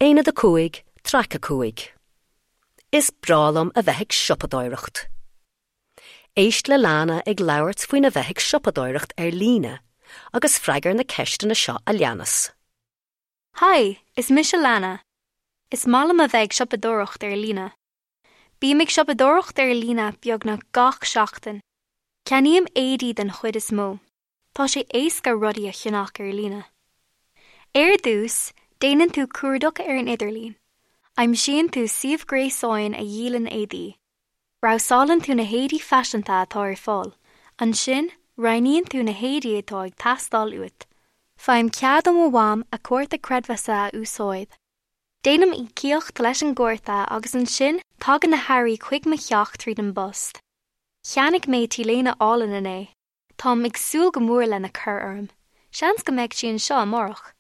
Aonad 5, Traic 5. Is breá liom a bheith ag siopadóireacht. Éist le Lana ag labhairt faoina bheith ag siopadóireacht ar líne agus freagair na ceisteanna seo a leanas. Haigh, is mise Lana. Is maith liom a bheith ag siopadóireacht ar líne. Bím ag siopadóireacht ar líne beagnach gach seachtain. Ceannaím éadaí den chuid is mó. Tá sé éasca rudaí a cheannach ar líne. Ar dtús, déanann tú cuardach ar an idirlíon. Aimsíonn tú suíomh gréasáin a dhíolann éadaí. Brabhsálann tú na héadaí faiseanta atá ar fáil. Ansin, roghnaíonn tú na héadaí atá ag teastáil uait. Faighim cead ó mo mham a cárta creidmheasa a úsáid. Déanaim íocaíocht leis an gcárta agus ansin tagann na hearraí chuig mo theach tríd an bpost. Cheannaigh mé t-léine álainn inné. Táim ag súil go mór lena cur orm. Seans go mbeidh sí anseo amárach.